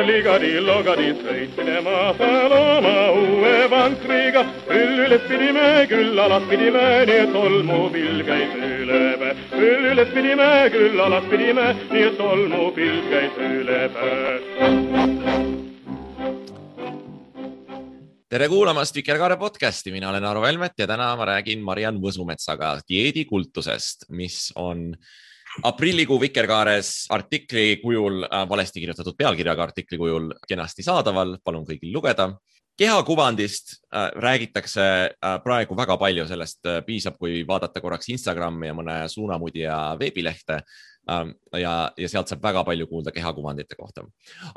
ligadi, logadi, sõitsime maasal oma uue vankriga. Üles pidime, küll alas pidime, nii et tolmupilv käis üle päe. Üles pidime, küll alas pidime, nii et tolmupilv käis üle päe. Tere kuulamast Vikerkaare podcasti, mina olen Aro Velmet ja täna ma räägin Mariann Võsumetsaga dieedikultusest, mis on aprillikuu Vikerkaares artikli kujul, valesti kirjutatud pealkirjaga artikli kujul kenasti saadaval, palun kõigil lugeda. Kehakuvandist räägitakse praegu väga palju, sellest piisab, kui vaadata korraks Instagrami ja mõne suunamudija veebilehte ja sealt saab väga palju kuulda kehakuvandite kohta.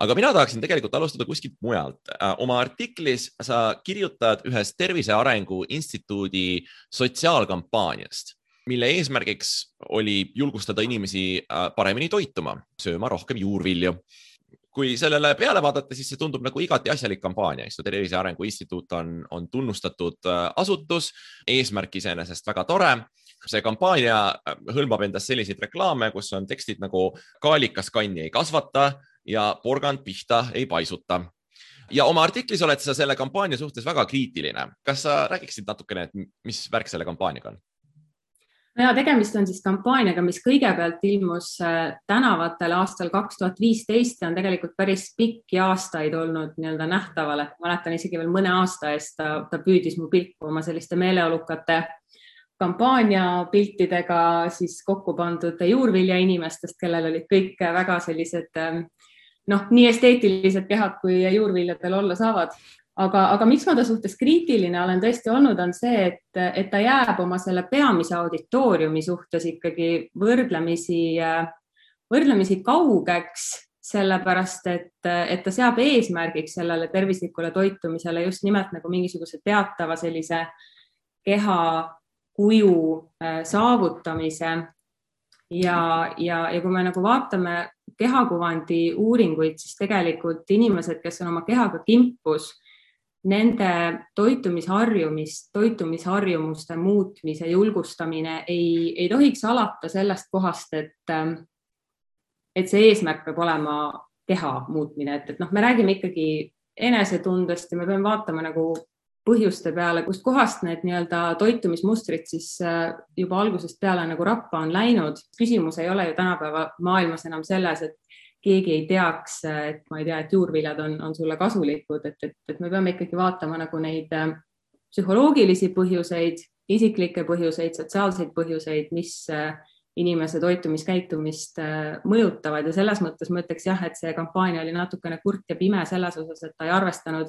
Aga mina tahaksin tegelikult alustada kuskilt mujalt. Oma artiklis sa kirjutad ühest Tervise Arengu Instituudi sotsiaalkampaaniast, mille eesmärgiks oli julgustada inimesi paremini toituma, sööma rohkem juurvilju. Kui sellele peale vaadata, siis see tundub nagu igati asjalik kampaania. Tervise Arengu Instituut on tunnustatud asutus, eesmärk iseenesest väga tore. See kampaania hõlmab endast selliseid reklaame, kus on tekstid nagu kaalikas kanni ei kasvata ja porgand pihta ei paisuta. Ja oma artiklis oled sa selle kampaania suhtes väga kriitiline. Kas sa räägiksid natukene, et mis värk selle kampaaniaga on? Ja tegemist on siis kampaaniaga, mis kõigepealt ilmus tänavatel aastal 2015 ja on tegelikult päris pikki aastaid olnud nähtaval. Mäletan isegi veel mõne aasta eest ta püüdis mu pilku oma selliste meeleolukate kampaaniapiltidega siis kokku pandud juurvilja inimestest, kellel olid kõik väga sellised nii esteetilised kehad, kui juurviljadel olla saavad. Aga miks ma ta suhtes kriitiline olen tõesti olnud, on see, et ta jääb oma selle peamise auditooriumi suhtes ikkagi võrdlemisi kaugeks, sellepärast, et ta seab eesmärgiks sellele tervislikule toitumisele just nimelt nagu mingisuguse teatava sellise keha kuju saavutamise ja kui me nagu vaatame kehakuvandi uuringuid, siis tegelikult inimesed, kes on oma kehaga kimpus, nende toitumisharjumuste muutmise julgustamine ei tohiks alata sellest kohast, et see eesmärk peab olema keha muutmine. Et me räägime ikkagi enesetundest ja me peame vaatama nagu põhjuste peale, kust kohast need toitumismustrid siis juba algusest peale nagu rappa on läinud. Küsimus ei ole ju tänapäeva maailmas enam selles, et keegi ei teaks, et juurviljad on sulle kasulikud, et me peame ikkagi vaatama nagu neid psühholoogilisi põhjuseid, isiklikke põhjuseid, sotsiaalseid põhjuseid, mis inimese toitumiskäitumist mõjutavad ja selles mõttes ma ütleks jah, et see kampaania oli natukene kurt ja pime selles osas, et ta ei arvestanud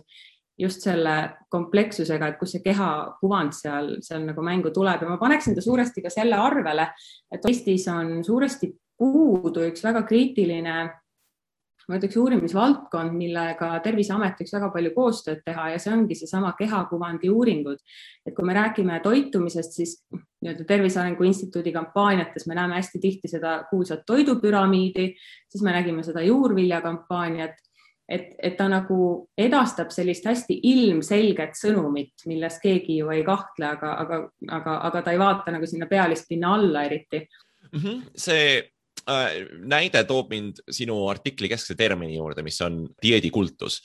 just selle komplekssusega, et kus see kehakuvand seal nagu mängu tuleb ja ma paneksin ta suuresti ka selle arvele, et Eestis on suuresti puudu üks väga kriitiline, ma ütleks uurimisvaldkond, millega Terviseamet võiks väga palju koostööd teha ja see ongi seesama kehakuvandi uuringud. Et kui me räägime toitumisest, siis Tervise Arengu Instituudi kampaaniates me näeme hästi tihti seda kuulsat toidupüramiidi, siis me nägime seda juurvilja kampaaniat, et ta nagu edastab sellist hästi ilmselget sõnumit, milles keegi ju ei kahtle, aga ta ei vaata nagu sinna pealispinna alla eriti. See näide toob mind sinu artikli keskse termini juurde, mis on dieedikultus.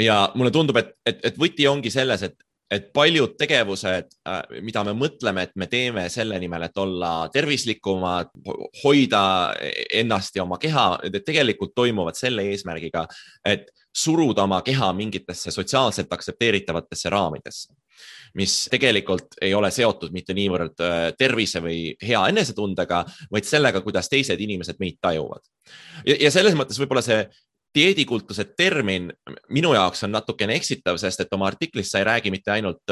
Ja mulle tundub, et võti ongi selles, et paljud tegevused, mida me mõtleme, et me teeme selle nimel, et olla tervislikumad, hoida ennast ja oma keha, tegelikult toimuvad selle eesmärgiga, et suruda oma keha mingitesse sotsiaalselt aktsepteeritavatesse raamidesse, mis tegelikult ei ole seotud mitte niivõrd tervise või hea enesetundega, vaid sellega, kuidas teised inimesed meid tajuvad. Ja selles mõttes võib-olla see dieedikultuse termin minu jaoks on natukene eksitav, sest et oma artiklis sa ei räägi mitte ainult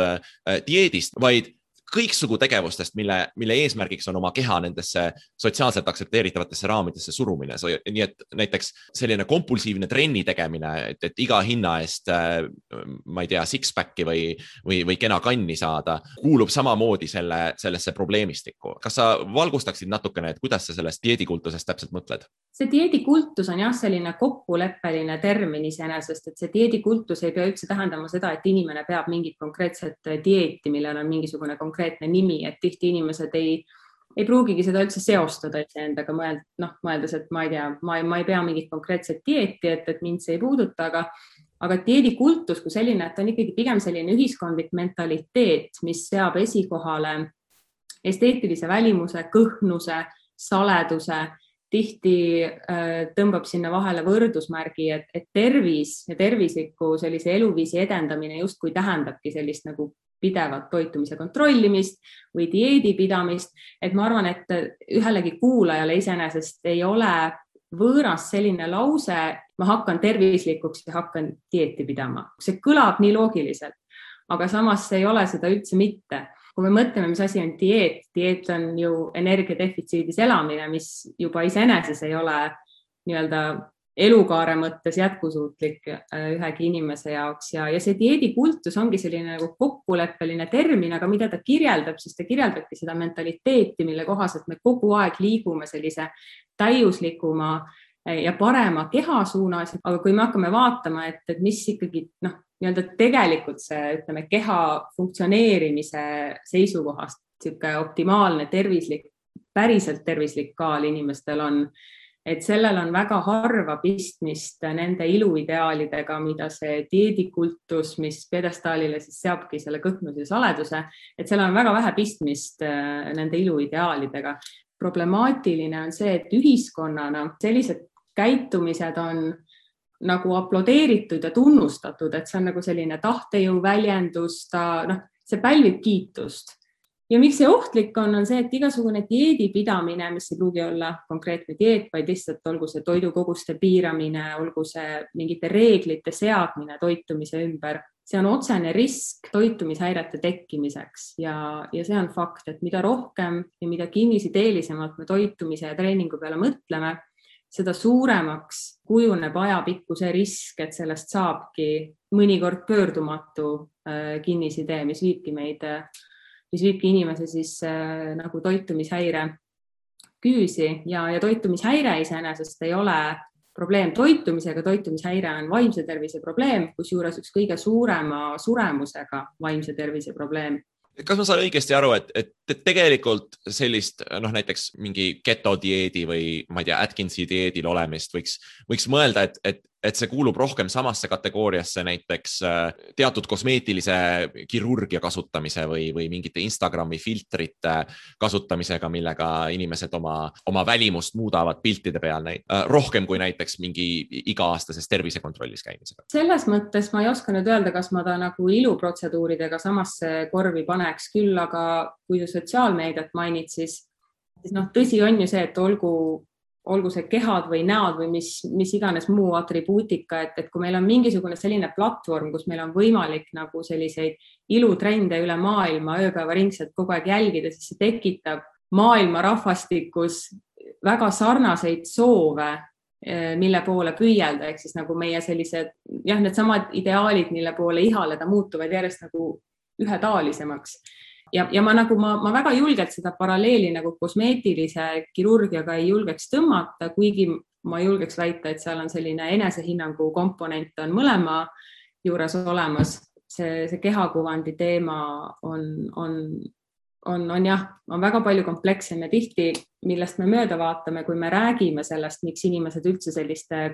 dieedist, vaid kõiksugu tegevustest, mille eesmärgiks on oma keha nendesse sotsiaalselt aktsepteeritavatesse raamidesse surumine. Nii et näiteks selline kompulsiivne trenni tegemine, et iga hinna eest, ma ei tea, six-packi või kena kanni saada, kuulub samamoodi sellesse probleemistikku. Kas sa valgustaksid natukene, et kuidas sa sellest dieedikultusest täpselt mõtled? See dieedikultus on jah selline kokkuleppeline termin iseenesest, et see dieedikultus ei pea üldse tähendama seda, et inimene peab mingit konkreetset dieeti, millel on mingisugune konkreetne nimi, et tihti inimesed ei ei pruugigi seda üldse seostada endaga, mõeldes, et ma ei tea, ma ei pea mingit konkreetset dieeti, et mind see ei puuduta, aga dieedikultus kui selline, et on ikkagi pigem selline ühiskondlik mentaliteet, mis seab esikohale esteetilise välimuse, kõhnuse, saleduse, tihti tõmbab sinna vahele võrdusmärgi, et tervis ja tervisliku sellise eluviisi edendamine justkui tähendabki sellist nagu pidevat toitumise kontrollimist või dieedi pidamist, et ma arvan, et ühelegi kuulajale iseenesest ei ole võõras selline lause, ma hakkan tervislikuks ja hakkan dieeti pidama. See kõlab nii loogiliselt, aga samas see ei ole seda üldse mitte. Kui me mõtleme, mis asi on dieet on ju energiadefitsiidis elamine, mis juba iseeneses ei ole nii-öelda elukaare mõttes jätkusuutlik ühegi inimese jaoks ja see dieedikultus ongi selline nagu kokkuleppeline termin, aga mida ta kirjeldab, siis ta kirjeldabki seda mentaliteeti, mille kohaselt me kogu aeg liigume sellise täiuslikuma ja parema keha suunas, aga kui me hakkame vaatama, et mis ikkagi nii-öelda tegelikult see, ütleme, keha funktsioneerimise seisukohast sihuke optimaalne tervislik, päriselt tervislik kaal inimestel on, et sellel on väga harva pistmist nende iluideaalidega, mida see dieedikultus, mis pjedestaalile siis seabki selle kõhnuse ja saleduse, et seal on väga vähe pistmist nende iluideaalidega. Problemaatiline on see, et ühiskonnana sellised käitumised on nagu aplodeeritud ja tunnustatud, et see on nagu selline tahtejõu väljendus, see pälvib kiitust. Ja miks see ohtlik on see, et igasugune dieedi pidamine, mis ei pruugi olla konkreetne dieet, vaid lihtsalt olgu see toidukoguste piiramine, olgu see mingite reeglite seadmine toitumise ümber, see on otsene risk toitumishäirete tekkimiseks ja see on fakt, et mida rohkem ja mida kinnisideelisemalt me toitumise ja treeningu peale mõtleme, seda suuremaks kujuneb ajapikku see risk, et sellest saabki mõnikord pöördumatu kinnisidee, mis viibki inimese siis nagu toitumishäire küüsi ja toitumishäire iseenesest ei ole probleem toitumisega, toitumishäire on vaimse tervise probleem, kusjuures üks kõige suurema suremusega vaimse tervise probleem. Kas ma saan õigesti aru, et tegelikult sellist näiteks mingi ketodieedi või ma ei tea, Atkinsi dieedil olemist võiks mõelda, et see kuulub rohkem samasse kategooriasse näiteks teatud kosmeetilise kirurgia kasutamise või mingite Instagrami filtrite kasutamisega, millega inimesed oma välimust muudavad piltide peal rohkem kui näiteks mingi iga-aastases tervisekontrollis käimisega. Selles mõttes ma ei oska nüüd öelda, kas ma ta nagu iluprotseduuridega samasse korvi paneks küll, aga kui sa sotsiaalmeediat mainid, siis tõsi on ju see, et olgu see kehad või näod või mis iganes muu atribuutika, et kui meil on mingisugune selline platvorm, kus meil on võimalik nagu selliseid ilutrende üle maailma ööpäevaringselt kogu aeg jälgida, siis see tekitab maailma rahvastikus väga sarnaseid soove, mille poole püüelda, ehk siis nagu meie sellised, needsamad ideaalid, mille poole ihaleda muutuvad järjest nagu ühetaolisemaks. Ja ma väga julgelt seda paralleeli nagu kosmeetilise kirurgiaga ei julgeks tõmmata, kuigi ma julgeks väita, et seal on selline enesehinnangu komponent on mõlema juures olemas. See kehakuvandi teema on väga palju komplekssem ja tihti, millest me mööda vaatame, kui me räägime sellest, miks inimesed üldse selliste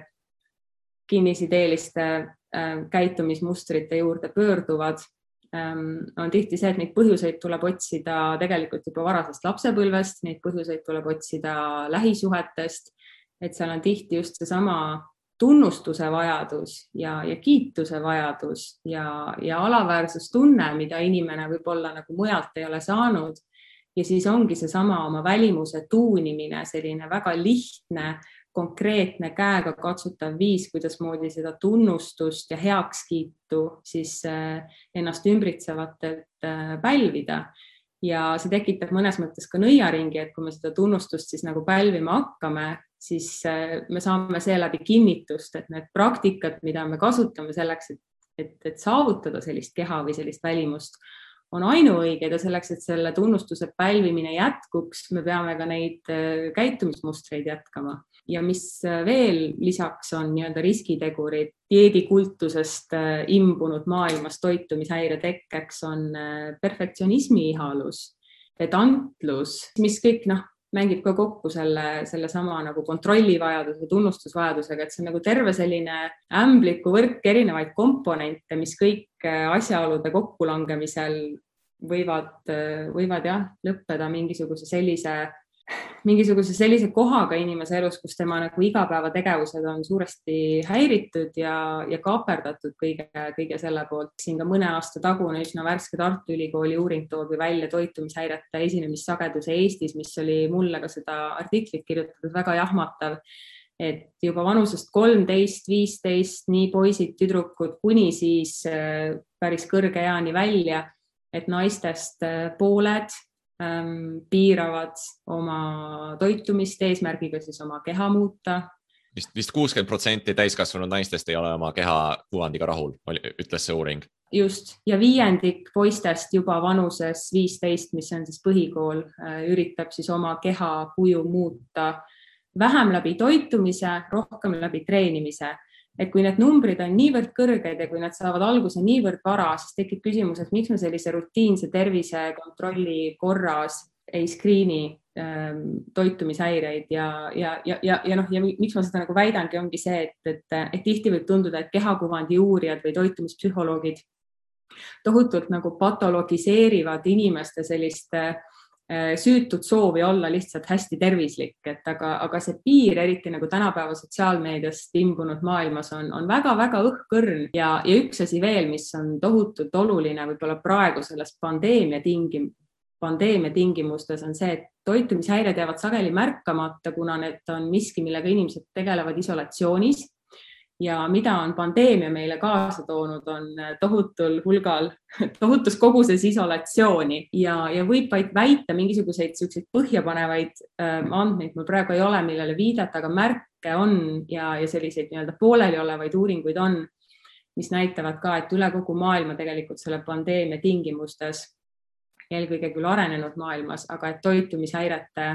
kinnisideeliste käitumismustrite juurde pöörduvad, on tihti see, et neid põhjuseid tuleb otsida tegelikult juba varasest lapsepõlvest, neid põhjuseid tuleb otsida lähisuhetest, et seal on tihti just seesama tunnustuse vajadus ja kiituse vajadus ja alaväärsustunne, mida inimene võib-olla nagu mujalt ei ole saanud. Ja siis ongi seesama oma välimuse tuunimine, selline väga lihtne, konkreetne käega katsutav viis, kuidas moodi seda tunnustust ja heakskiitu siis ennast ümbritsevatelt pälvida. Ja see tekitab mõnes mõttes ka nõiaringi, et kui me seda tunnustust siis nagu pälvima hakkame, siis me saame seeläbi kinnitust, et need praktikad, mida me kasutame selleks, et saavutada sellist keha või sellist välimust, on ainuõiged ja selleks, et selle tunnustuse pälvimine jätkuks, me peame ka neid käitumismustreid jätkama. Ja mis veel lisaks on nii-öelda riskitegurid dieedikultusest imbunud maailmas toitumishäire tekkeks on perfektsionismi ihalus pedantlus, mis kõik mängib ka kokku selle sama nagu kontrollivajaduse, tunnustusvajadusega, et see on nagu terve selline ämbliku võrk erinevaid komponente, mis kõik asjaolude kokkulangemisel võivad jah, lõppeda mingisuguse sellise kohaga inimese elus, kus tema nagu igapäevategevused on suuresti häiritud ja kaaperdatud kõige selle poolt. Siin ka mõne aasta tagune üsna värske Tartu Ülikooli uuring toobi välja toitumishäirete esinemissageduse Eestis, mis oli mulle ka seda artiklit kirjutatud väga jahmatav, et juba vanusest 13, 15, nii poisid, tüdrukud kuni siis päris kõrge eani välja, et naistest pooled piiravad oma toitumist eesmärgiga siis oma keha muuta. Vist 60% täiskasvanud naistest ei ole oma keha kuvandiga rahul, ütles see uuring. Just, ja 5% poistest juba vanuses 15, mis on siis põhikool, üritab siis oma keha kuju muuta vähem läbi toitumise, rohkem läbi treenimise. Et kui need numbrid on niivõrd kõrged ja kui nad saavad alguse niivõrd vara, siis tekib küsimus, et miks me sellise rutiinse tervisekontrolli korras ei skriini toitumishäireid ja miks ma seda nagu väidangi, ongi see, et tihti võib tunduda, et kehakuvandi uurijad või toitumispsühholoogid tohutult nagu patologiseerivad inimeste sellist süütud soovi olla lihtsalt hästi tervislik, aga see piir, eriti nagu tänapäeva sotsiaalmeediast imbunud maailmas on väga-väga õhkõrn ja üks asi veel, mis on tohutult oluline võib-olla praegu selles pandeemia tingimustes on see, et toitumishäired jäävad sageli märkamata, kuna need on miski, millega inimesed tegelevad isolatsioonis. Ja mida on pandeemia meile kaasa toonud, on tohutus koguses isolatsiooni ja võib vaid väita mingisuguseid põhjapanevaid andmeid, mul praegu ei ole, millele viidata, aga märke on ja selliseid nii-öelda pooleli olevaid uuringuid on, mis näitavad ka, et üle kogu maailma tegelikult selle pandeemia tingimustes, eelkõige küll arenenud maailmas, aga et toitumishäirete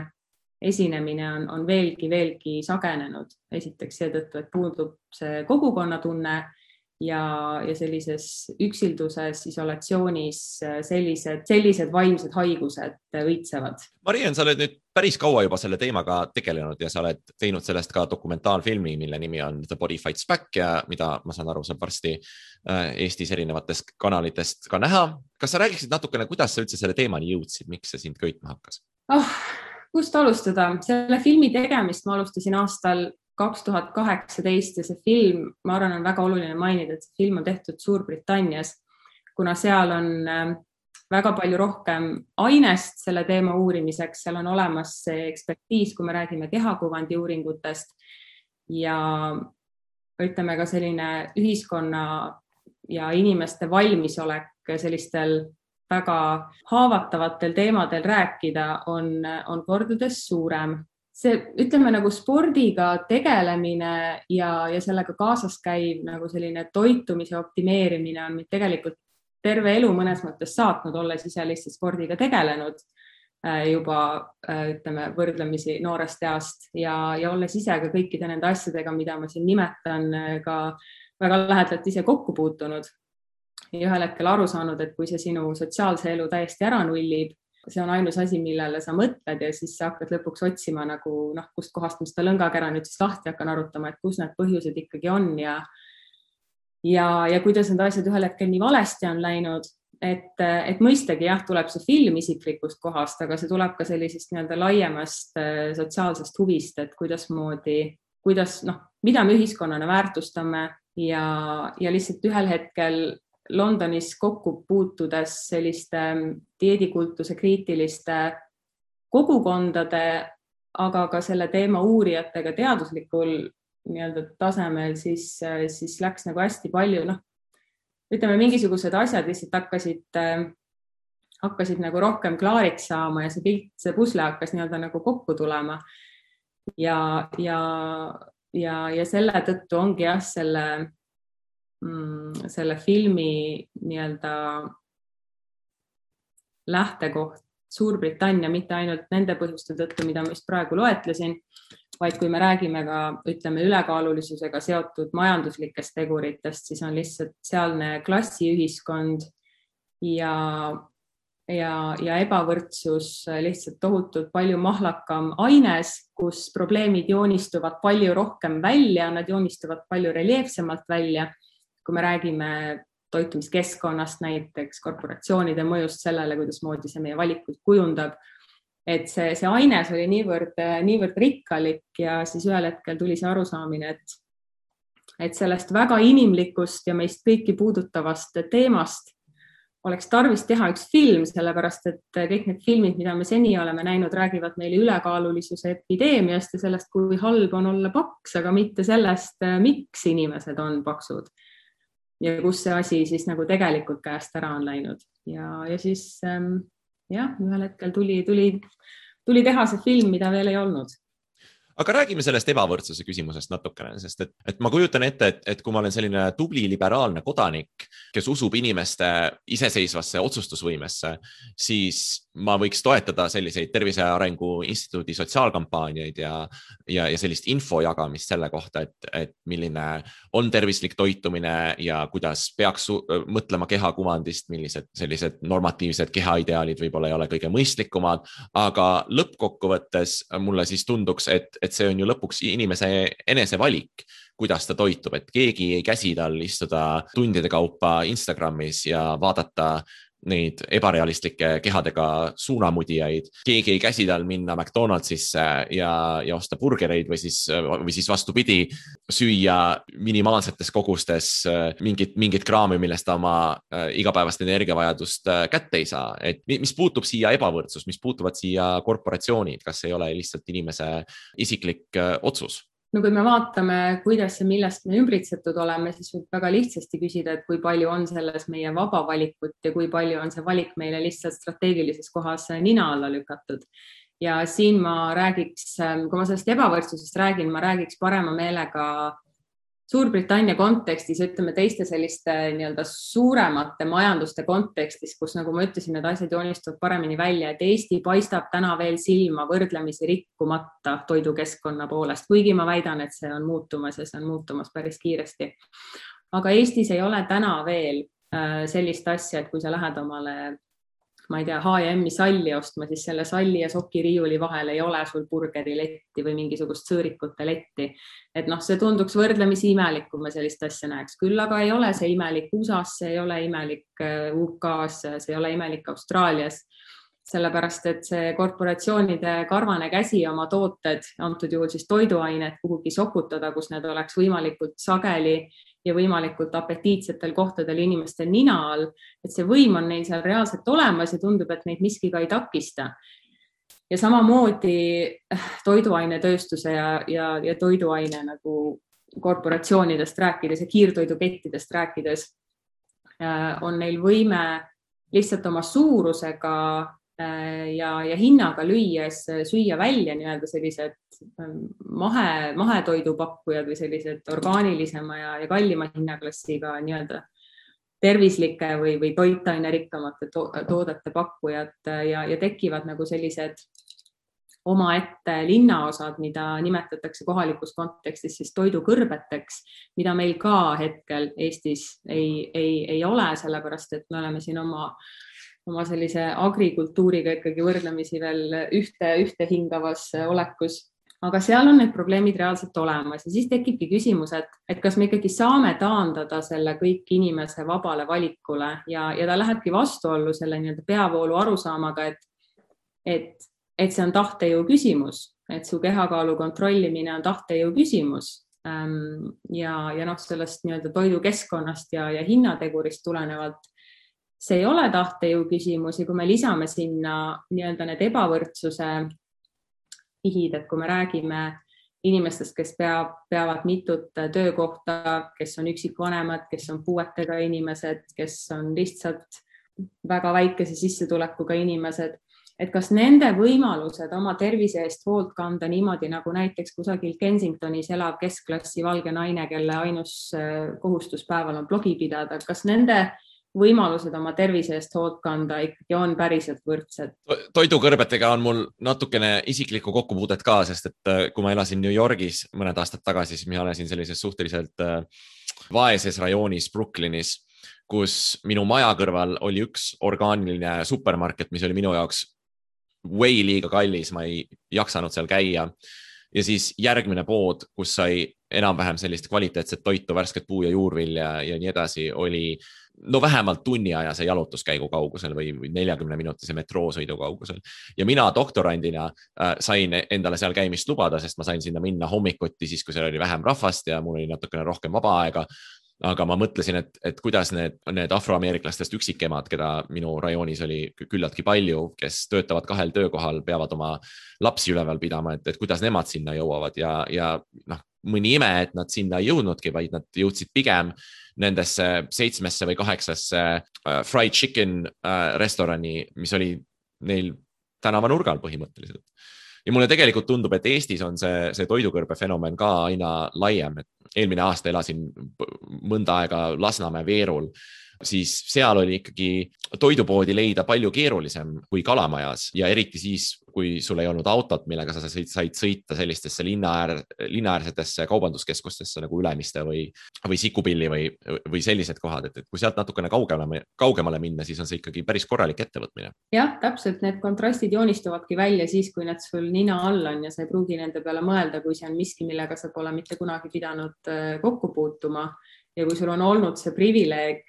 esinemine on veelgi sagenenud. Esiteks seetõttu, et puudub see kogukonnatunne ja sellises üksilduses, isolatsioonis sellised vaimsed haigused õitsevad. Mariann, sa oled nüüd päris kaua juba selle teemaga tegelenud ja sa oled teinud sellest ka dokumentaalfilmi, mille nimi on The Body Fights Back ja mida ma saan aru, saab varsti Eestis erinevatest kanalitest ka näha. Kas sa räägiksid natukene, kuidas sa üldse selle teemani jõudsid, miks see sind köitma hakkas? Kust alustada? Selle filmi tegemist ma alustasin aastal 2018 ja see film, ma arvan, on väga oluline mainida, et see film on tehtud Suurbritannias, kuna seal on väga palju rohkem ainest selle teema uurimiseks, seal on olemas see ekspertiis, kui me räägime kehakuvandi uuringutest ja ütleme ka selline ühiskonna ja inimeste valmisolek sellistel väga haavatavatel teemadel rääkida on kordades suurem. See, ütleme nagu spordiga tegelemine ja sellega kaasas käiv nagu selline toitumise optimeerimine on tegelikult terve elu mõnes mõttes saatnud, olles ise lihtsalt spordiga tegelenud juba, ütleme, võrdlemisi noorest east ja olles ise ka kõikide nende asjadega, mida ma siin nimetan, ka väga lähedalt ise kokku puutunud. Ja ühel hetkel aru saanud, et kui see sinu sotsiaalse elu täiesti ära nullib, see on ainus asi, millele sa mõtled ja siis sa hakkad lõpuks otsima nagu, kust kohast ma seda lõngakera nüüd siis lahti hakkan arutama, et kus need põhjused ikkagi on ja kuidas need asjad ühel hetkel nii valesti on läinud, et mõistagi jah, tuleb see film isiklikust kohast, aga see tuleb ka sellisest nii-öelda laiemast sotsiaalsest huvist, et mida me ühiskonnana väärtustame ja lihtsalt ühel hetkel Londonis kokku puutudes selliste dieedikultuse kriitiliste kogukondade, aga ka selle teema uurijatega teaduslikul nii-öelda tasemel, siis läks nagu hästi palju, ütleme, mingisugused asjad lihtsalt hakkasid nagu rohkem klaariks saama ja see pusle hakkas nii-öelda nagu kokku tulema. Ja selle tõttu ongi jah, selle filmi nii-öelda lähtekoht Suurbritannia mitte ainult nende põhjuste tõttu, mida ma just praegu loetlesin, vaid kui me räägime ka, ütleme, ülekaalulisusega seotud majanduslikest teguritest, siis on lihtsalt sealne klassiühiskond ja ja ebavõrdsus lihtsalt tohutult palju mahlakam aines, kus probleemid joonistuvad palju rohkem välja, nad joonistuvad palju reljeefsemalt välja. Kui me räägime toitumiskeskkonnast, näiteks korporatsioonide mõjust sellele, kuidas moodi see meie valikuid kujundab, et see aines oli niivõrd rikkalik ja siis ühel hetkel tuli see arusaamine, et sellest väga inimlikust ja meist kõiki puudutavast teemast oleks tarvis teha üks film, sellepärast et kõik need filmid, mida me seni oleme näinud, räägivad meile ülekaalulisuse epideemiast ja sellest, kui halb on olla paks, aga mitte sellest, miks inimesed on paksud ja kus see asi siis nagu tegelikult käest ära on läinud. Ja siis ühel hetkel tuli teha see film, mida veel ei olnud. Aga räägime sellest ebavõrdsuse küsimusest natukene, sest et ma kujutan ette, et kui ma olen selline tubli liberaalne kodanik, kes usub inimeste iseseisvasse otsustusvõimesse, siis ma võiks toetada selliseid Tervise Arengu Instituudi sotsiaalkampaaniaid ja sellist info jagamist selle kohta, et milline on tervislik toitumine ja kuidas peaks mõtlema kehakuvandist, millised sellised normatiivsed kehaideaalid võib-olla ei ole kõige mõistlikumad, aga lõppkokkuvõttes mulle siis tunduks, et see on ju lõpuks inimese enese valik, kuidas ta toitub, et keegi ei käsi tal istuda tundide kaupa Instagramis ja vaadata neid ebarealistlikke kehadega suunamudijaid. Keegi ei käsi tal minna McDonaldsisse ja osta burgereid või siis vastupidi, süüa minimaalsetes kogustes mingit kraami, millest ta oma igapäevast energiavajadust kätte ei saa. Et mis puutub siia ebavõrdsus, mis puutuvad siia korporatsioonid, kas ei ole lihtsalt inimese isiklik otsus? No kui me vaatame, kuidas ja millest me ümbritsetud oleme, siis võib väga lihtsasti küsida, et kui palju on selles meie vaba valikut ja kui palju on see valik meile lihtsalt strateegilises kohas nina alla lükatud. Ja siin ma räägiks, kui ma sellest ebavõrdsusest räägin, ma räägiks parema meelega Suurbritannia kontekstis, ütleme teiste selliste nii-öelda suuremate majanduste kontekstis, kus nagu ma ütlesin, need asjad joonistuvad paremini välja, et Eesti paistab täna veel silma võrdlemisi rikkumata toidukeskkonna poolest, kuigi ma väidan, et see on muutumas ja see on muutumas päris kiiresti. Aga Eestis ei ole täna veel sellist asja, et kui sa lähed omale, ma ei tea, H&M-i salli ostma, siis selle salli ja sokiriiuli vahel ei ole sul burgeriletti või mingisugust sõõrikute letti. Et see tunduks võrdlemisi imelik, kui me sellist asja näeks. Küll aga ei ole see imelik USA-s, see ei ole imelik UK-s, see ei ole imelik Austraalias. Sellepärast, et see korporatsioonide karvane käsi oma tooted, antud juhul siis toiduained kuhugi sokutada, kus need oleks võimalikult sageli ja võimalikult apetiitsetel kohtadel inimeste nina all, et see võim on neil seal reaalselt olemas ja tundub, et neid miski ka ei takista. Ja samamoodi toiduainetööstuse ja toiduaine nagu korporatsioonidest rääkides ja kiirtoidukettidest rääkides on neil võime lihtsalt oma suurusega ja hinnaga lüües süüa välja nii-öelda sellised mahetoidupakkujad või sellised orgaanilisema ja kallima hinnaklassiga nii-öelda tervislike või toitaine-rikkamate toodete pakkujad ja tekivad nagu sellised omaette linnaosad, mida nimetatakse kohalikus kontekstis siis toidukõrbeteks, mida meil ka hetkel Eestis ei ole, sellepärast et me oleme siin oma sellise agrikultuuriga ikkagi võrdlemisi veel ühte hingavas olekus, aga seal on need probleemid reaalselt olemas ja siis tekibki küsimus, et kas me ikkagi saame taandada selle kõik inimese vabale valikule ja ta lähebki vastuollu selle nii-öelda peavoolu arusaamaga, et see on tahtejõu küsimus, et su kehakaalu kontrollimine on tahtejõu küsimus ja sellest nii-öelda toidukeskkonnast ja hinnategurist tulenevalt see ei ole tahtejõu küsimus ja kui me lisame sinna nii-öelda need ebavõrdsuse ihid, et kui me räägime inimestest, kes peavad mitut töökohta, kes on üksikvanemad, kes on puuetega inimesed, kes on lihtsalt väga väikese sissetulekuga inimesed, et kas nende võimalused oma tervise eest hoolt kanda niimoodi, nagu näiteks kusagil Kensingtonis elav keskklassi valge naine, kelle ainus kohustuspäeval on blogi pidada, kas nende võimalused oma tervise eest hoolt kanda ikkagi on päriselt võrdsed. Toidukõrbetega on mul natukene isiklikku kokkupuudet ka, sest et kui ma elasin New Yorgis mõned aastad tagasi, siis ma elasin sellises suhteliselt vaeses rajoonis Brooklynis, kus minu maja kõrval oli üks orgaaniline supermarket, mis oli minu jaoks way liiga kallis, ma ei jaksanud seal käia. Ja siis järgmine pood, kus sai enam-vähem sellist kvaliteetset toitu, värsket puu- ja juurvilja ja nii edasi, oli vähemalt tunniajase jalutuskäigu kaugusel või 40-minutise metroosõidu kaugusel. Ja mina doktorandina sain endale seal käimist lubada, sest ma sain sinna minna hommikuti siis, kui seal oli vähem rahvast ja mul oli natukene rohkem vaba aega. Aga ma mõtlesin, et kuidas need afroameeriklastest üksikemad, keda minu rajoonis oli küllaltki palju, kes töötavad 2 töökohal, peavad oma lapsi üleval pidama, et kuidas nemad sinna jõuavad ja mõni ime, et nad sinna ei jõudnudki, vaid nad jõudsid pigem nendesse 7 või 8 fried chicken restorani, mis oli neil tänavanurgal põhimõtteliselt. Ja mulle tegelikult tundub, et Eestis on see toidukõrbe fenomen ka aina laiem. Eelmine aasta elasin mõnda aega Lasnamäe Veerul, siis seal oli ikkagi toidupoodi leida palju keerulisem kui Kalamajas ja eriti siis, kui sul ei olnud autot, millega sa said sõita sellistesse linnaäärsetesse kaubanduskeskustesse nagu Ülemiste või Sikupilli või sellised kohad, et kui sealt natukene kaugemale minna, siis on see ikkagi päris korralik ettevõtmine. Jah, täpselt, need kontrastid joonistuvadki välja siis, kui need sul nina all on ja sa ei pruugi nende peale mõelda, kui see on miski, millega sa pole mitte kunagi pidanud kokku puutuma ja kui sul on olnud see privileeg,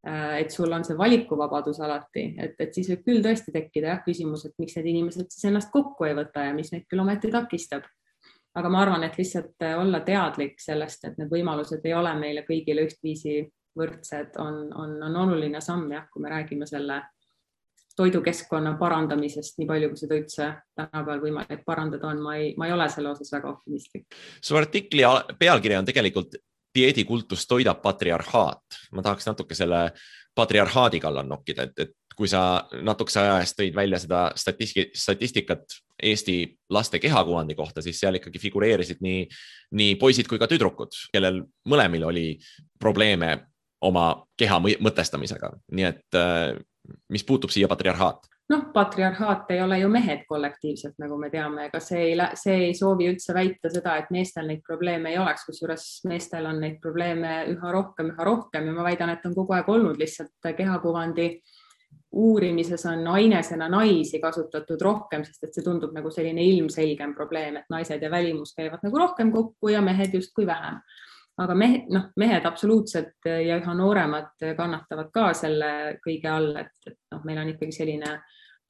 et sul on see valikuvabadus alati, et siis võib küll tõesti tekkida küsimus, et miks need inimesed siis ennast kokku ei võta ja mis neid küll ometi takistab. Aga ma arvan, et lihtsalt olla teadlik sellest, et need võimalused ei ole meile kõigile ühtviisi võrdsed, on oluline samm, jah, kui me räägime selle toidukeskkonna parandamisest, nii palju, kui seda üldse tänapäeval võimalik parandada on, ma ei ole selle osas väga optimistlik. Su artikli pealkiri on tegelikult dieedikultus toidab patriarhaat. Ma tahaks natuke selle patriarhaadi kallal nokkida, et kui sa natukese aja eest tõid välja seda statistikat Eesti laste kehakuvandi kohta, siis seal ikkagi figureerisid nii poisid kui ka tüdrukud, kellel mõlemil oli probleeme oma keha mõtestamisega. Nii et mis puutub siia patriarhaat? Patriarhaat ei ole ju mehed kollektiivselt, nagu me teame, ega see ei soovi üldse väita seda, et meestel neid probleeme ei oleks, kusjuures meestel on neid probleeme üha rohkem ja ma väidan, et on kogu aeg olnud lihtsalt kehakuvandi uurimises on ainesena naisi kasutatud rohkem, sest et see tundub nagu selline ilmselgem probleem, et naised ja välimus käivad nagu rohkem kokku ja mehed justkui vähem. Aga mehed absoluutselt ja üha nooremad kannatavad ka selle kõige all, et meil on ikkagi selline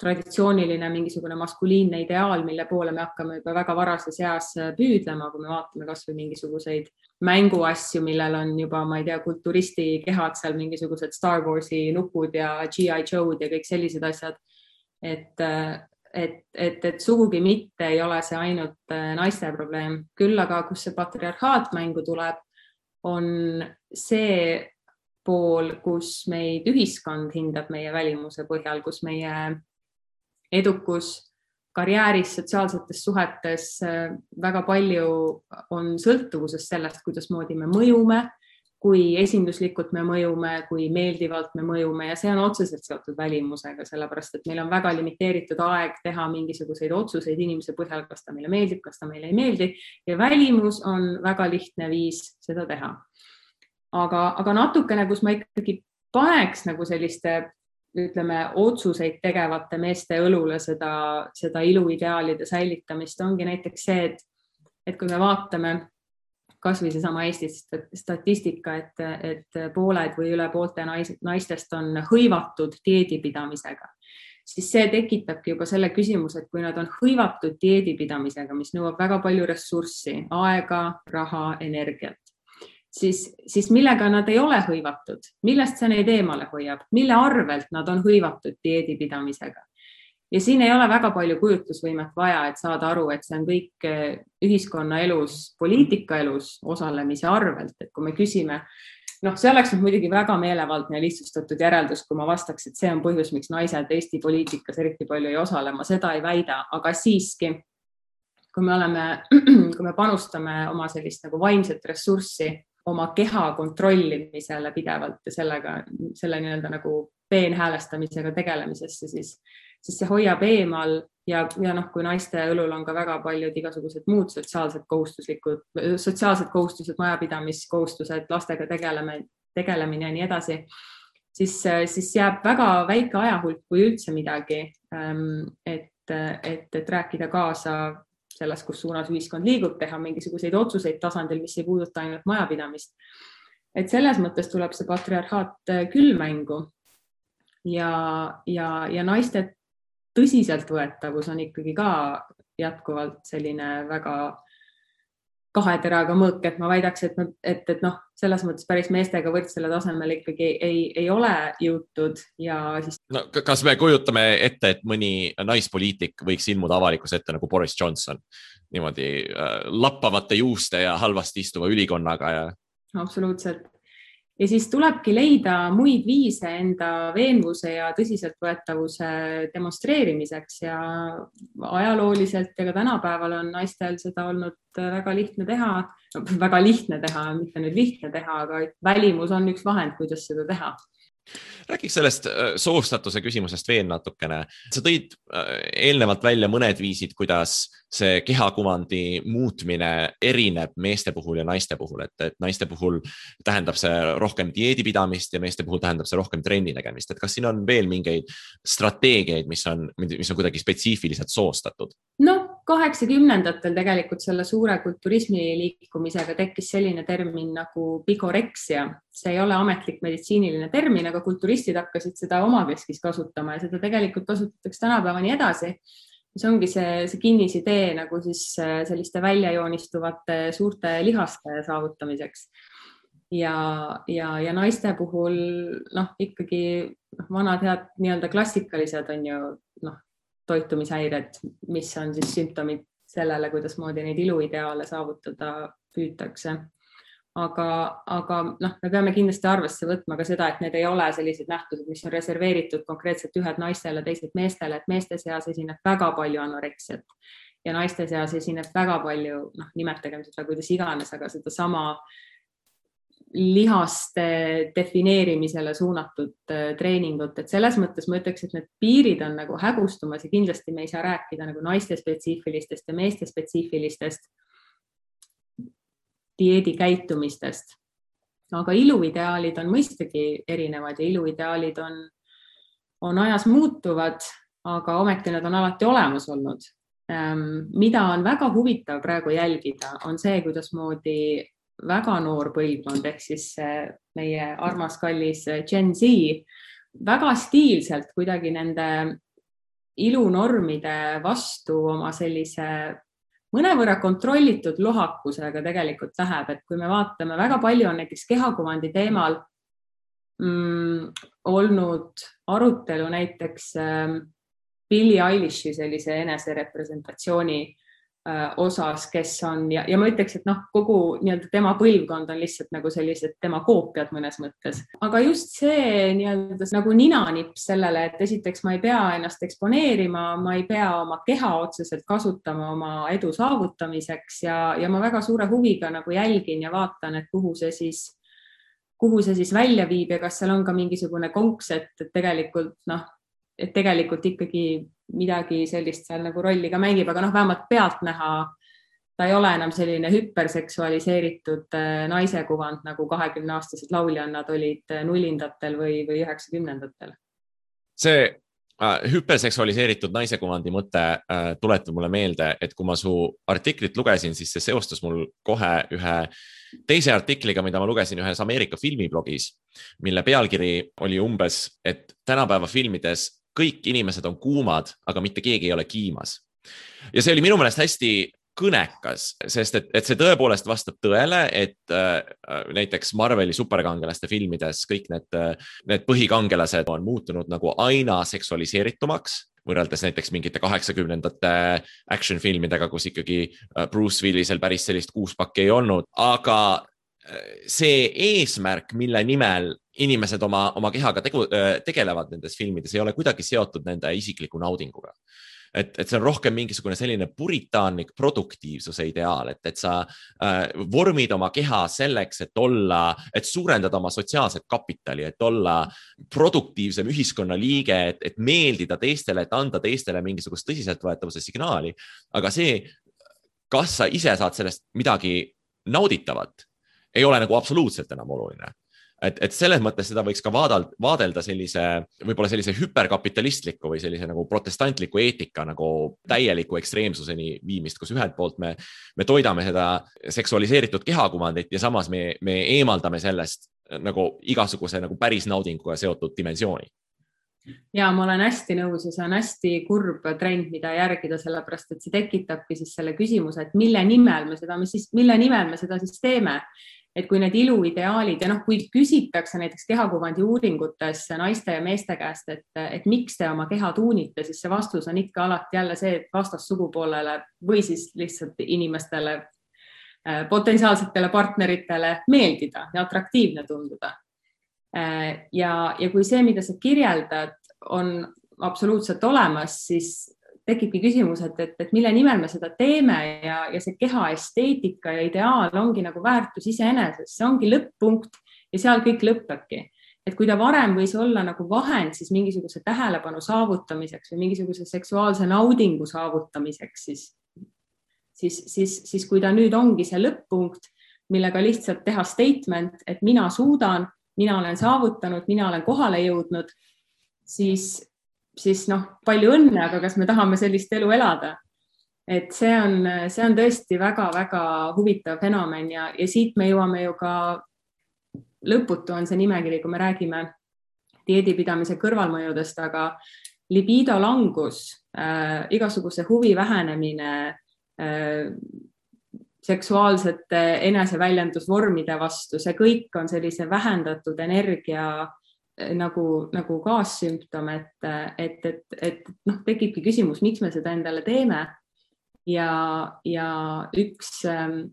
traditsiooniline mingisugune maskuliinne ideaal, mille poole me hakkame juba väga varases eas püüdlema, kui me vaatame kas või mingisuguseid mänguasju, millel on juba, ma ei tea, kulturisti kehad seal, mingisugused Star Warsi nupud ja G.I. Joe'd ja kõik sellised asjad. Et sugugi mitte ei ole see ainult naiste probleem. Küll aga, kus see patriarhaat mängu tuleb, on see pool, kus meid ühiskond hindab meie välimuse põhjal, kus meie edukus karjääris, sotsiaalsetes suhetes väga palju on sõltuvuses sellest, kuidas moodi me mõjume, kui esinduslikult me mõjume, kui meeldivalt me mõjume ja see on otseselt seotud välimusega, sellepärast et meil on väga limiteeritud aeg teha mingisuguseid otsuseid inimese põhjal, kas ta meile meeldib, kas ta meile ei meeldi ja välimus on väga lihtne viis seda teha. Aga natukene, kus ma ikkagi paneks nagu selliste ütleme, otsuseid tegevate meeste õlule seda iluideaalide säilitamist ongi näiteks see, et kui me vaatame kas või seesama Eesti statistika, et pooled või üle poolte naistest on hõivatud dieedipidamisega, siis see tekitabki juba selle küsimuse, et kui nad on hõivatud dieedipidamisega, mis nõuab väga palju ressurssi, aega, raha, energiat, siis millega nad ei ole hõivatud, millest see neid eemale hoiab, mille arvelt nad on hõivatud dieedipidamisega. Ja siin ei ole väga palju kujutlusvõimet vaja, et saada aru, et see on kõik ühiskonna elus, poliitika elus osalemise arvelt, et kui me küsime, see oleks muidugi väga meelevaldne ja lihtsustatud järeldus, kui ma vastaks, et see on põhjus, miks naised Eesti poliitikas eriti palju ei osale, ma seda ei väida, aga siiski, kui me panustame oma sellist nagu vaimset ressurssi, oma keha kontrollimisele pidevalt ja selle nii-öelda nagu peenhäälestamisega tegelemisesse, siis see hoiab eemal ja kui naiste õlul on ka väga paljud igasugused muud sotsiaalsed kohustused, majapidamiskohustused, lastega tegelemine ja nii edasi, siis jääb väga väike ajahulk kui üldse midagi, et rääkida kaasa selles, kus suunas ühiskond liigub, teha mingisuguseid otsuseid tasandil, mis ei puuduta ainult majapidamist. Et selles mõttes tuleb see patriarhaat küll mängu ja naiste tõsiseltvõetavus on ikkagi ka jätkuvalt selline väga kahe teraga mõõk, et ma väidaks, et selles mõttes päris meestega võrdsele tasemel ikkagi ei ole jõutud ja siis... No, kas me kujutame ette, et mõni naispoliitik võiks ilmuda avalikus ette nagu Boris Johnson, niimoodi lappavate juuste ja halvasti istuva ülikonnaga ja... Absoluutselt. Ja siis tulebki leida muid viise enda veenvuse ja tõsiseltvõetavuse demonstreerimiseks ja ajalooliselt ja ka tänapäeval on naistel seda olnud väga lihtne teha, mitte nüüd lihtne teha, aga välimus on üks vahend, kuidas seda teha. Räägiks sellest soostatuse küsimusest veel natukene. Sa tõid eelnevalt välja mõned viisid, kuidas see kehakuvandi muutmine erineb meeste puhul ja naiste puhul, et naiste puhul tähendab see rohkem dieedipidamist ja meeste puhul tähendab see rohkem trenni tegemist. Et kas siin on veel mingeid strateegiaid, mis on kuidagi spetsiifiliselt soostatud? No, 80-ndatel tegelikult selle suure kulturismi liikumisega tekkis selline termin nagu bigorexia. See ei ole ametlik meditsiiniline termin, aga kulturistid hakkasid seda omakeskis kasutama ja seda tegelikult kasutatakse tänapäevani edasi. See ongi see kinnisidee nagu siis selliste väljajoonistuvate suurte lihaste saavutamiseks. Ja naiste puhul ikkagi vanad head nii-öelda klassikalised on ju toitumishäired, mis on siis sümptomid sellele, kuidas moodi neid iluideaale saavutada püütakse. Aga me peame kindlasti arvesse võtma ka seda, et need ei ole sellised nähtused, mis on reserveeritud konkreetselt ühed naistele, teised meestele, et meeste seas esineb väga palju anoreksiat ja naiste seas esineb väga palju, nimetagem seda kuidas iganes, aga seda sama lihaste defineerimisele suunatud treeningut, et selles mõttes ma ütleks, et need piirid on nagu hägustumas ja kindlasti me ei saa rääkida nagu naiste spetsiifilistest ja meeste spetsiifilistest dieedikäitumistest. Aga iluideaalid on mõistagi erinevad ja iluideaalid on ajas muutuvad, aga ometi nad on alati olemas olnud. Mida on väga huvitav praegu jälgida, on see, kuidas moodi väga noor põlvkond, ehk siis meie armas kallis Gen Z väga stiilselt kuidagi nende ilunormide vastu oma sellise mõnevõrra kontrollitud lohakusega tegelikult läheb, et kui me vaatame, väga palju on näiteks kehakuvandi teemal olnud arutelu näiteks Billie Eilishi sellise eneserepresentatsiooni osas, kes on ja ma ütleks, et kogu nii-öelda tema põlvkond on lihtsalt nagu sellised tema koopiad mõnes mõttes. Aga just see nii-öelda nagu ninanipp sellele, et esiteks ma ei pea ennast eksponeerima, ma ei pea oma keha otseselt kasutama oma edu saavutamiseks ja ma väga suure huviga nagu jälgin ja vaatan, et kuhu see siis välja viib ja kas seal on ka mingisugune konks, et tegelikult ikkagi midagi sellist seal nagu rolli ka mängib, aga vähemalt pealt näha, ta ei ole enam selline hüperseksualiseeritud naise kuvand, nagu 20-aastased lauljannad olid nullindatel või 90-ndatel. See hüperseksualiseeritud naise kuvandi mõte tuletab mulle meelde, et kui ma su artiklit lugesin, siis see seostus mul kohe ühe teise artikliga, mida ma lugesin ühes Ameerika filmiblogis, mille pealkiri oli umbes, et tänapäeva filmides kõik inimesed on kuumad, aga mitte keegi ei ole kiimas. Ja see oli minu meelest hästi kõnekas, sest et see tõepoolest vastab tõele, et näiteks Marveli superkangelaste filmides kõik need põhikangelased on muutunud nagu aina seksualiseeritumaks, võrreldes näiteks mingite 80-ndate action filmidega, kus ikkagi Bruce Willisel päris sellist kuuspakki ei olnud, aga see eesmärk, mille nimel inimesed oma kehaga tegelevad nendes filmides, ei ole kuidagi seotud nende isikliku naudinguga. Et see on rohkem mingisugune selline puritaanlik produktiivsuse ideaal, et sa vormid oma keha selleks, et suurendada oma sotsiaalset kapitali, et olla produktiivsem ühiskonnaliige, et meeldida teistele, et anda teistele mingisugust tõsiseltvõetavuse signaali. Aga see, kas sa ise saad sellest midagi nauditavat, ei ole nagu absoluutselt enam oluline. et selles mõttes seda võiks ka vaadelda võib-olla sellise hüperkapitalistliku või sellise nagu protestantliku eetika nagu täieliku ekstreemsuseni viimist, kus ühelt poolt me toidame seda seksualiseeritud kehakuvandit ja samas me eemaldame sellest nagu igasuguse nagu päris naudinguga seotud dimensiooni. Ja ma olen hästi nõus ja see on hästi kurb trend, mida järgida, sellepärast, et see tekitabki siis selle küsimuse, et mille nimel me seda siis teeme. Et kui need iluideaalid ja kui küsitakse näiteks kehakuvandi uuringutes naiste ja meeste käest, et miks te oma keha tuunite, siis see vastus on ikka alati jälle see, et vastassugupoolele või siis lihtsalt inimestele, potentsiaalsetele partneritele meeldida ja atraktiivne tunduda. Ja kui see, mida sa kirjeldad, on absoluutselt olemas, siis tekibki küsimus, et mille nimel me seda teeme ja see keha esteetika ja ideaal ongi nagu väärtus iseenesest, see ongi lõpp-punkt ja seal kõik lõppebki. Et kui ta varem võis olla nagu vahend siis mingisuguse tähelepanu saavutamiseks või mingisuguse seksuaalse naudingu saavutamiseks, siis kui ta nüüd ongi see lõpp-punkt, millega lihtsalt teha statement, et mina suudan, mina olen saavutanud, mina olen kohale jõudnud, siis palju õnne, aga kas me tahame sellist elu elada? Et see on tõesti väga-väga huvitav fenomen ja siit me jõuame ju ka lõputu on see nimekiri, kui me räägime dieedipidamise kõrvalmõjudest, aga libido langus, igasuguse huvi vähenemine, seksuaalsete eneseväljendusvormide vastu, see kõik on sellise vähendatud energia nagu kaassümptom, et tekibki küsimus, miks me seda endale teeme ja üks 5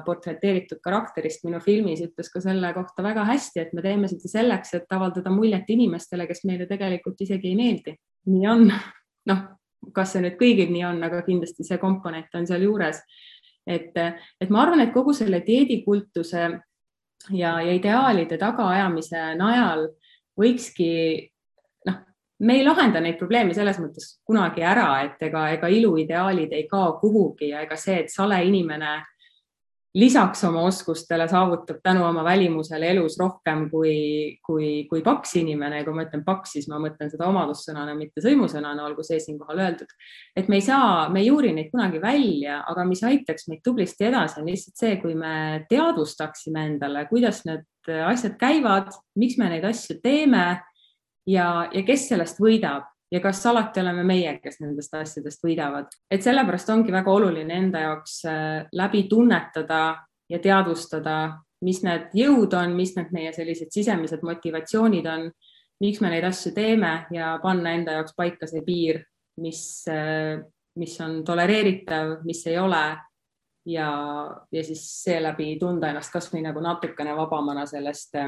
portreteeritud karakterist minu filmis ütles ka selle kohta väga hästi, et me teeme seda selleks, et avaldada muljet inimestele, kes meile tegelikult isegi ei meeldi. Nii on, kas see nüüd kõigil nii on, aga kindlasti see komponent on seal juures, et ma arvan, et kogu selle dieedikultuse ja ideaalide tagaajamise najal võikski, me ei lahenda neid probleeme selles mõttes kunagi ära, et ega iluideaalid ei kao kuhugi ja ega see, et sale inimene lisaks oma oskustele saavutab tänu oma välimusele elus rohkem kui paks inimene. Ja kui ma ütlen paks, siis ma mõtlen seda omadussõnana, mitte sõimusõnana, olgu see siinkohal öeldud. Et me ei juuri neid kunagi välja, aga mis aitaks meid tublisti edasi on lihtsalt see, kui me teadvustaksime endale, kuidas need asjad käivad, miks me neid asju teeme ja kes sellest võidab. Ja kas alati oleme meie, kes nendest asjadest võidavad. Et sellepärast ongi väga oluline enda jaoks läbi tunnetada ja teadvustada, mis need jõud on, mis need meie sellised sisemised motivatsioonid on, miks me neid asju teeme ja panna enda jaoks paika see piir, mis on tolereeritav, mis ei ole ja siis seeläbi tunda ennast kas või nagu natukene vabamana sellest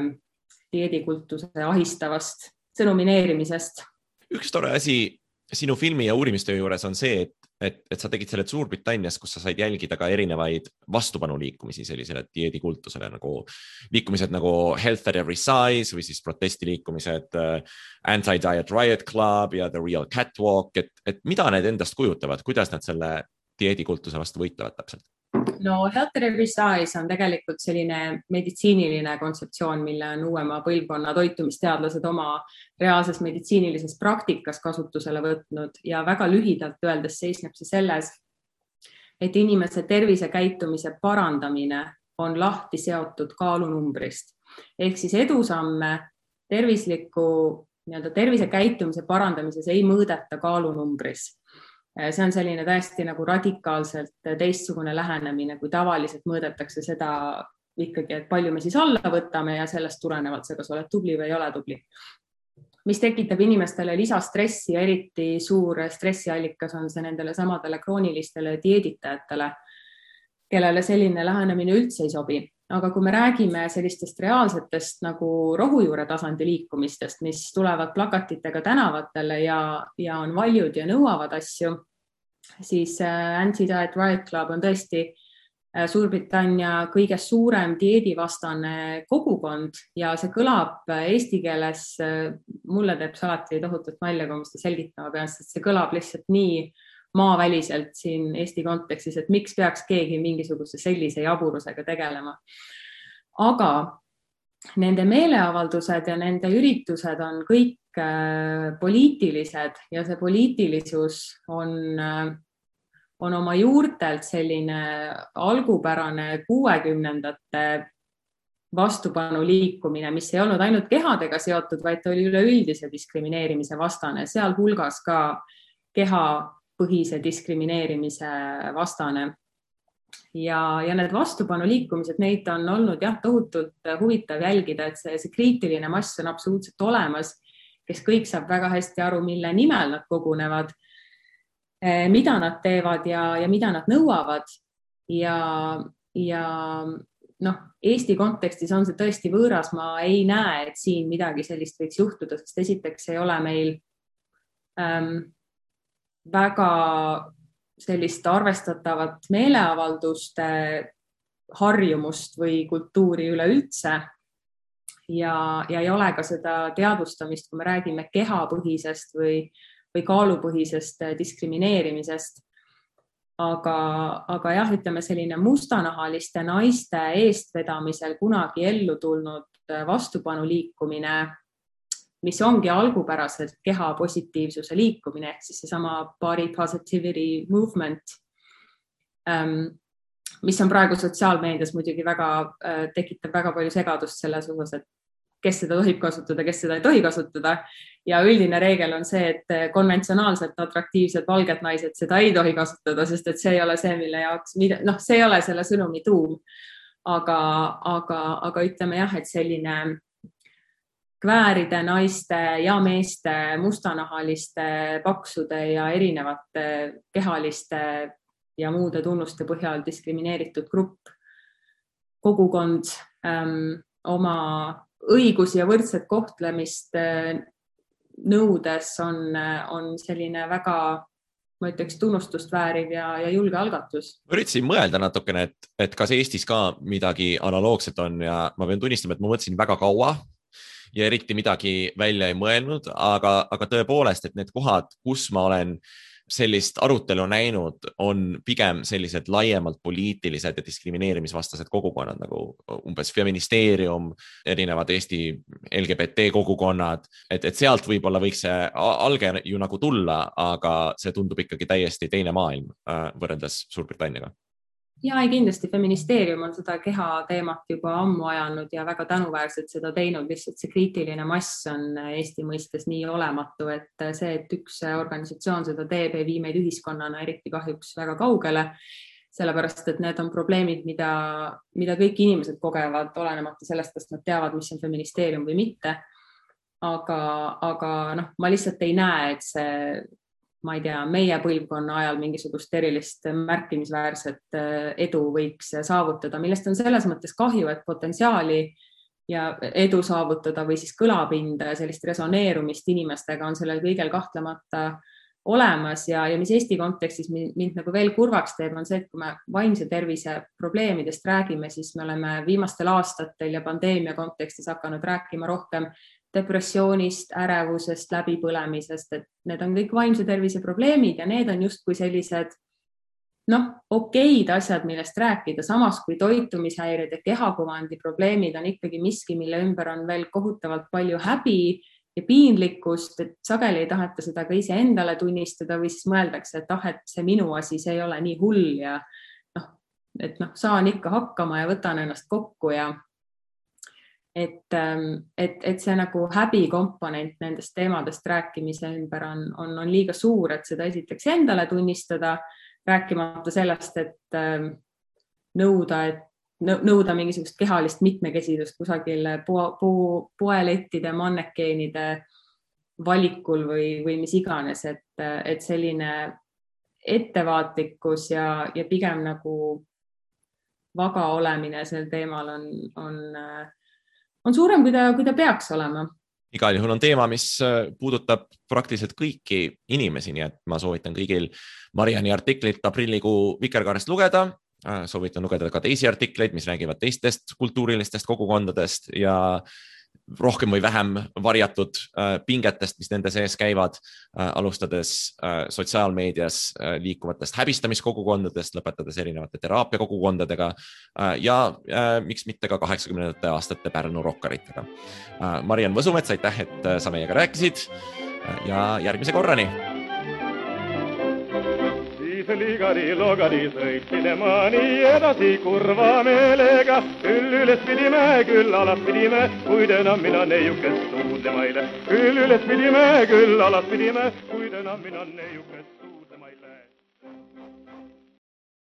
dieedikultuse ahistavast sõnumineerimisest. Üks tore asi sinu filmi ja uurimistöö juures on see, et sa tegid selle Suurbritannias, kus sa said jälgida ka erinevaid vastupanuliikumisi sellisele dieedikultusele, nagu liikumised nagu Health at Every Size või siis protestiliikumised Anti-Diet Riot Club ja The Real Catwalk, et mida need endast kujutavad, kuidas nad selle dieedikultuse vastu võitlevad täpselt? No Health at Every Size on tegelikult selline meditsiiniline kontseptsioon, mille on uuema põlvkonna toitumisteadlased oma reaalses meditsiinilises praktikas kasutusele võtnud ja väga lühidalt öeldes seisneb see selles, et inimese tervisekäitumise parandamine on lahti seotud kaalunumbrist. Ehk siis edusamme tervisekäitumise parandamises ei mõõdeta kaalunumbris. See on selline täiesti nagu radikaalselt teistsugune lähenemine, kui tavaliselt mõõdetakse seda ikkagi, et palju me siis alla võtame ja sellest tulenevalt see, kas oled tubli või ei ole tubli. Mis tekitab inimestele lisastressi ja eriti suur stressiallikas on see nendele samadele kroonilistele dieeditajatele, kellele selline lähenemine üldse ei sobi. Aga kui me räägime sellistest reaalsetest nagu rohujuure tasandi liikumistest, mis tulevad plakatitega tänavatele ja on valjud ja nõuavad asju, siis Anti-Diet Riot Club on tõesti Suurbritannia kõige suurem dieedivastane kogukond ja see kõlab eesti keeles, mulle teeb see alati tohutult nalja, kui ma seda selgitama pean, sest see kõlab lihtsalt nii maaväliselt siin Eesti kontekstis, et miks peaks keegi mingisuguse sellise jaburusega tegelema. Aga nende meeleavaldused ja nende üritused on kõik poliitilised ja see poliitilisus on oma juurtelt selline algupärane 60ndate vastupanu liikumine, mis ei olnud ainult kehadega seotud, vaid oli üleüldise diskrimineerimise vastane, sealhulgas ka kehapõhise diskrimineerimise vastane. Ja need vastupanu liikumised, neid on olnud tohutult huvitav jälgida, et see kriitiline mass on absoluutselt olemas, kes kõik saab väga hästi aru, mille nimel nad kogunevad, mida nad teevad ja mida nad nõuavad. Ja Eesti kontekstis on see tõesti võõras, ma ei näe, et siin midagi sellist võiks juhtuda, sest esiteks ei ole meil väga sellist arvestatavat meeleavalduste harjumust või kultuuri üleüldse ja ei ole ka seda teadvustamist, kui me räägime kehapõhisest või kaalupõhisest diskrimineerimisest. Aga ütleme selline mustanahaliste naiste eestvedamisel kunagi ellu tulnud vastupanu liikumine, mis ongi algupäraselt keha positiivsuse liikumine, ehk siis seesama body positivity movement, mis on praegu sotsiaalmeedias muidugi tekitab väga palju segadust selles osas, et kes seda tohib kasutada, kes seda ei tohi kasutada. Ja üldine reegel on see, et konventsionaalselt atraktiivsed valged naised seda ei tohi kasutada, sest et see ei ole see, mille jaoks, see ei ole selle sõnumi tuum. Aga ütleme et selline kvääride naiste ja meeste, mustanahaliste, paksude ja erinevate kehaliste ja muude tunnuste põhjal diskrimineeritud grupp, kogukond oma õigusi ja võrdset kohtlemist nõudes on selline väga, ma ütleks, tunnustust vääriv ja julge algatus. Ma üritasin mõelda natukene, et kas Eestis ka midagi analoogset on ja ma pean tunnistama, et ma mõtlesin väga kaua ja eriti midagi välja ei mõelnud, aga tõepoolest, et need kohad, kus ma olen sellist arutelu näinud, on pigem sellised laiemalt poliitilised ja diskrimineerimisvastased kogukonnad, nagu umbes feministeerium, erinevad Eesti LGBT kogukonnad, et sealt võib-olla võiks see alge ju nagu tulla, aga see tundub ikkagi täiesti teine maailm võrreldes Suurbritanniaga. Ja kindlasti feministeerium on seda keha teemat juba ammu ajanud ja väga tänuväärselt seda teinud, lihtsalt see kriitiline mass on Eesti mõistes nii olematu, et see, et üks organisatsioon seda teeb, ei vii meid ühiskonnana eriti kahjuks väga kaugele, sellepärast, et need on probleemid, mida kõik inimesed kogevad, olenemata sellest, kas nad teavad, mis on feministeerium või mitte. Aga ma lihtsalt ei näe, et see ma ei tea, meie põlvkonna ajal mingisugust erilist märkimisväärset edu võiks saavutada, millest on selles mõttes kahju, et potentsiaali ja edu saavutada või siis kõlapinda ja sellist resoneerumist inimestega on sellel kõigel kahtlemata olemas ja mis Eesti kontekstis mind nagu veel kurvaks teeb, on see, et kui me vaimse tervise probleemidest räägime, siis me oleme viimastel aastatel ja pandeemia kontekstis hakanud rääkima rohkem depressioonist, ärevusest, läbipõlemisest, et need on kõik vaimse tervise probleemid ja need on justkui sellised okeid asjad, millest rääkida, samas kui toitumishäired ja kehakuvandi probleemid on ikkagi miski, mille ümber on veel kohutavalt palju häbi ja piinlikkust, et sageli ei taheta seda ka ise endale tunnistada või siis mõeldakse, et see minu asi, see ei ole nii hull ja saan ikka hakkama ja võtan ennast kokku ja et see nagu häbi komponent nendest teemadest rääkimise ümber on liiga suur, et seda esiteks endale tunnistada, rääkimata sellest, et nõuda mingisugust kehalist mitmekesisust kusagil poelettide, mannekeenide valikul või mis iganes, et selline ettevaatlikkus ja pigem nagu vaga olemine sel teemal on suurem, kui ta peaks olema. Igal juhul on teema, mis puudutab praktiliselt kõiki inimesi, nii et ma soovitan kõigil Mariani artiklit aprillikuu Vikerkaarest lugeda. Soovitan lugeda ka teisi artikleid, mis räägivad teistest kultuurilistest kogukondadest ja rohkem või vähem varjatud pingetest, mis nende sees käivad, alustades sotsiaalmeedias liikuvatest häbistamiskogukondadest, lõpetades erinevate teraapiakogukondadega ja miks mitte ka 80. aastate Pärnu rokkaritega. Mariann Võsumets, aitäh, et sa meiega rääkisid ja järgmise korrani! Ligari-logari sõit minema nii edasi kurva meelega. Küll üles pidime, küll alas pidime, kuid enam mina neiukest suudlema eile. Küll üles pidime, küll alas pidime, kuid enam mina neiukest suudlema.